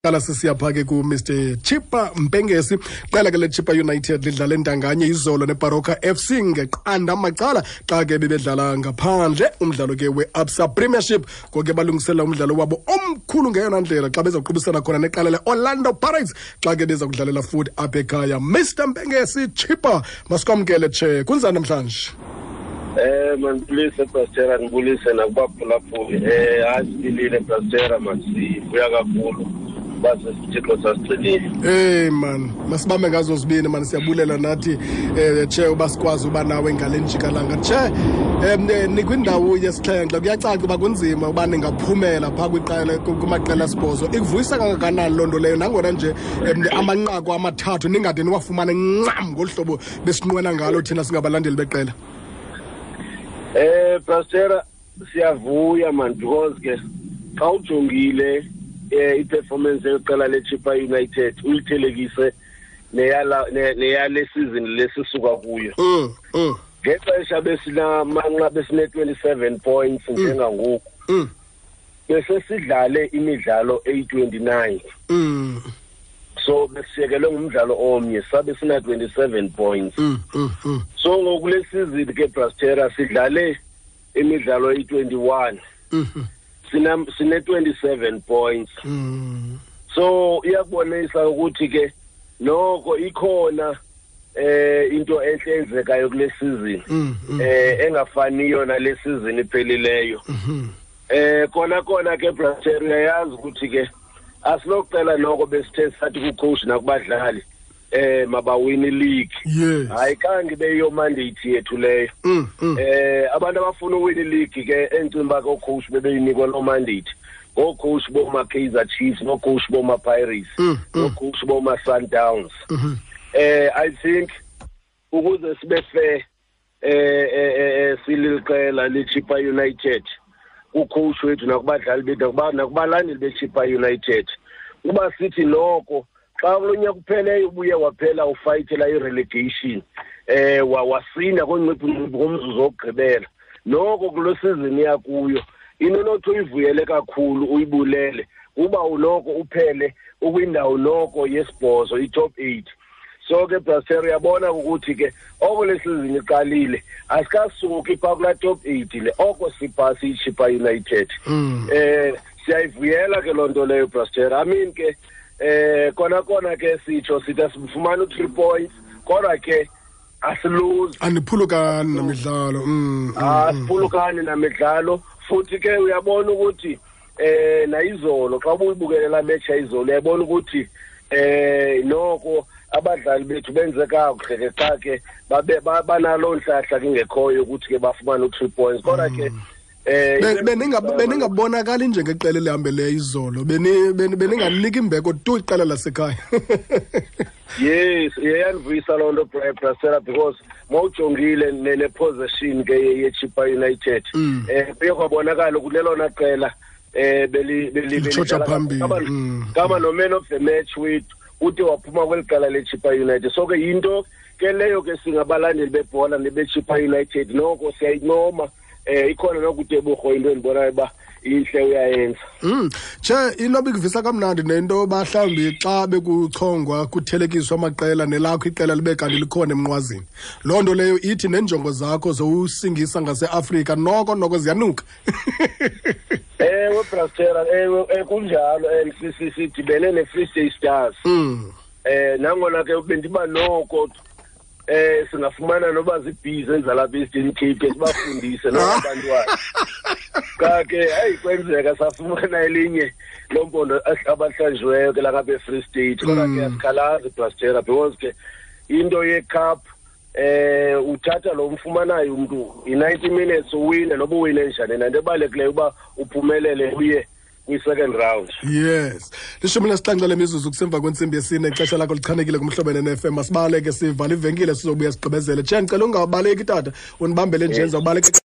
Qala sisiya pha ke ku-Mr Chippa Mpengesi. Qela ke le-Chippa United lidlala entanganye izolo neBaroka FC ngeqanda macala xa ke bebedlala ngaphandle umdlalo ke we-Absa Premiership. Ngoku ke balungiselela umdlalo wabo omkhulu ngeyona ndlela xa bezawuqubisana khona neqela le-Orlando Pirates xa ke beza kudlalela futhi apha ekhaya. Mr Mpengesi Chippa, masikwamkele tshe, kunzani namhlanje? Mandibulise Pastera, ndibulise nakubaphulaphuli. Hayi siphilile Pastera, masivuya kakhulu uba sesithixo sasigcinile. Hey man, masibambe ngazo zibini man, siyabulela nathi tshe uba sikwazi uba nawe ngale njikalanga. Tshe, nikwindawo yesixhenxe, kuyacaca uba kunzima uba ningaphumela phaa kwiqela kumaqela asibhozo. Ikuvuyisa kangakanani loo nto leyo nangona nje amanqaku amathathu ningade niwafumane ncam ngolu hlobo besinqwena ngalo thina singabalandeli beqela? Pastera, siyavuya man, because ke xa ujongile i-performance yeqela leChippa United uyithelekise neyale season lesisuka kuyo. Ngexesha besinamanqa besine 27 points njengangoku. Bese sidlale imidlalo eyi-29. So besiyekelwe ngumdlalo omnye, sabe sina 27 points. So ngoku le season ke Brastera sidlale imidlalo eyi-21. Sine 27 points. So iyakubonisa ukuthi ke noko ikhona into enhle enzekayo kule season. Engafaniyo nale season iphelileyo. Kona ke Brastera uyayazi ukuthi ke asinokucela noko besithe sathi ku-coach nakubadlali mabawini league. Hayi kanti beyo mandate yethu leyo. Abantu abafuna uwina league ke encimba ko coach bebeyinikwa lo mandate. Go coach boma Kaizer Chiefs, no coach boma Pirates, no coach boma Sundowns. I think ukuze sibe fair sililiqela leChippa United ku-coach wethu nakubadlali bethu nakubalandeli beChippa United, uba sithi noko xa kulonyaka kupheleyo ubuye waphela ufayithela i-relegation wasinda konciphu ngomzuzu wokugqibela, noko kulo season yakuyo into nothi uyivuyele kakhulu uyibulele kuba unoko uphele ukwindawo noko yesibhozo, i-top 8. So ke Brastera uyabona ukuthi ke oko le season iqalile asikasuki phaa kulaa top 8 le oko siphasi iChippa United. Siyayivuyela ke loo nto leyo Brastera. I mean ke kona ke sitsho sithi asifumana u-3 points kodwa ke asiluzi. Aniphulukani namidlalo. Asiphulukani namidlalo futhi ke uyabona ukuthi nayizolo xa ubuyibukele la match yayizolo uyabona ukuthi noko abadlali bethu benze kakuhle ke xa ke babe banaloo ntlahla kingekhoyo ukuthi ke bafumane u-3 points kodwa ke Beningabonakali njengeqela elihambeleyo izolo, beninganiki imbeko tu iqela lasekhaya. Yes, iyandivuyisa loo nto Brasera, because mawujongile ne-possession ke ye-Chippa United, kuye kwabonakala ukuthi lelona qela Litshotsha phambili. Kama no man of the match wethu ude waphuma kweli qela leChippa United. So ke yinto ke leyo ke singabalandeli bebhola nebeChippa United noko siyayincoma. Ikhona nokuTebogo into endibonayo uba intle uyayenza. Che, into bikuvisa kamnandi nento mhlawumbi xa bekuchongwa kuthelekiswa amaqela nelakho iqela libe kanti likhona emnqwazini. Loo nto leyo ithi neenjongo zakho zowusingisa ngaseAfrika noko ziyanuka. Ewe Brastera, ewe kunjalo, sidibene neFree State Stars. Nangona ke bendiba noko singafumana noba zibhizi ezalapha e-Eastern Cape sibafundise nabantwana. Cha ke hayi kwenzeka safumana elinye lompondo abahlanjiweyo ke lapha e-Free State. Kodwa ke asikhalazi Brastera, because ke into ye-cup uthatha lo mfumanayo umntu i-90 minutes uwine noba uwine njani, nanto ebalulekileyo uba uphumelele uye kwi-second round. Yes. 17 lemizuzu kusemva kwentsimbi yesine, ixesha lakho lichanekile kumhlobo ne-FM. Masibaleke sivala ivenkile sizobuya sigqibezele. Che, ndicela ungabaleki tata, undibambele nje, ndizawubaleka.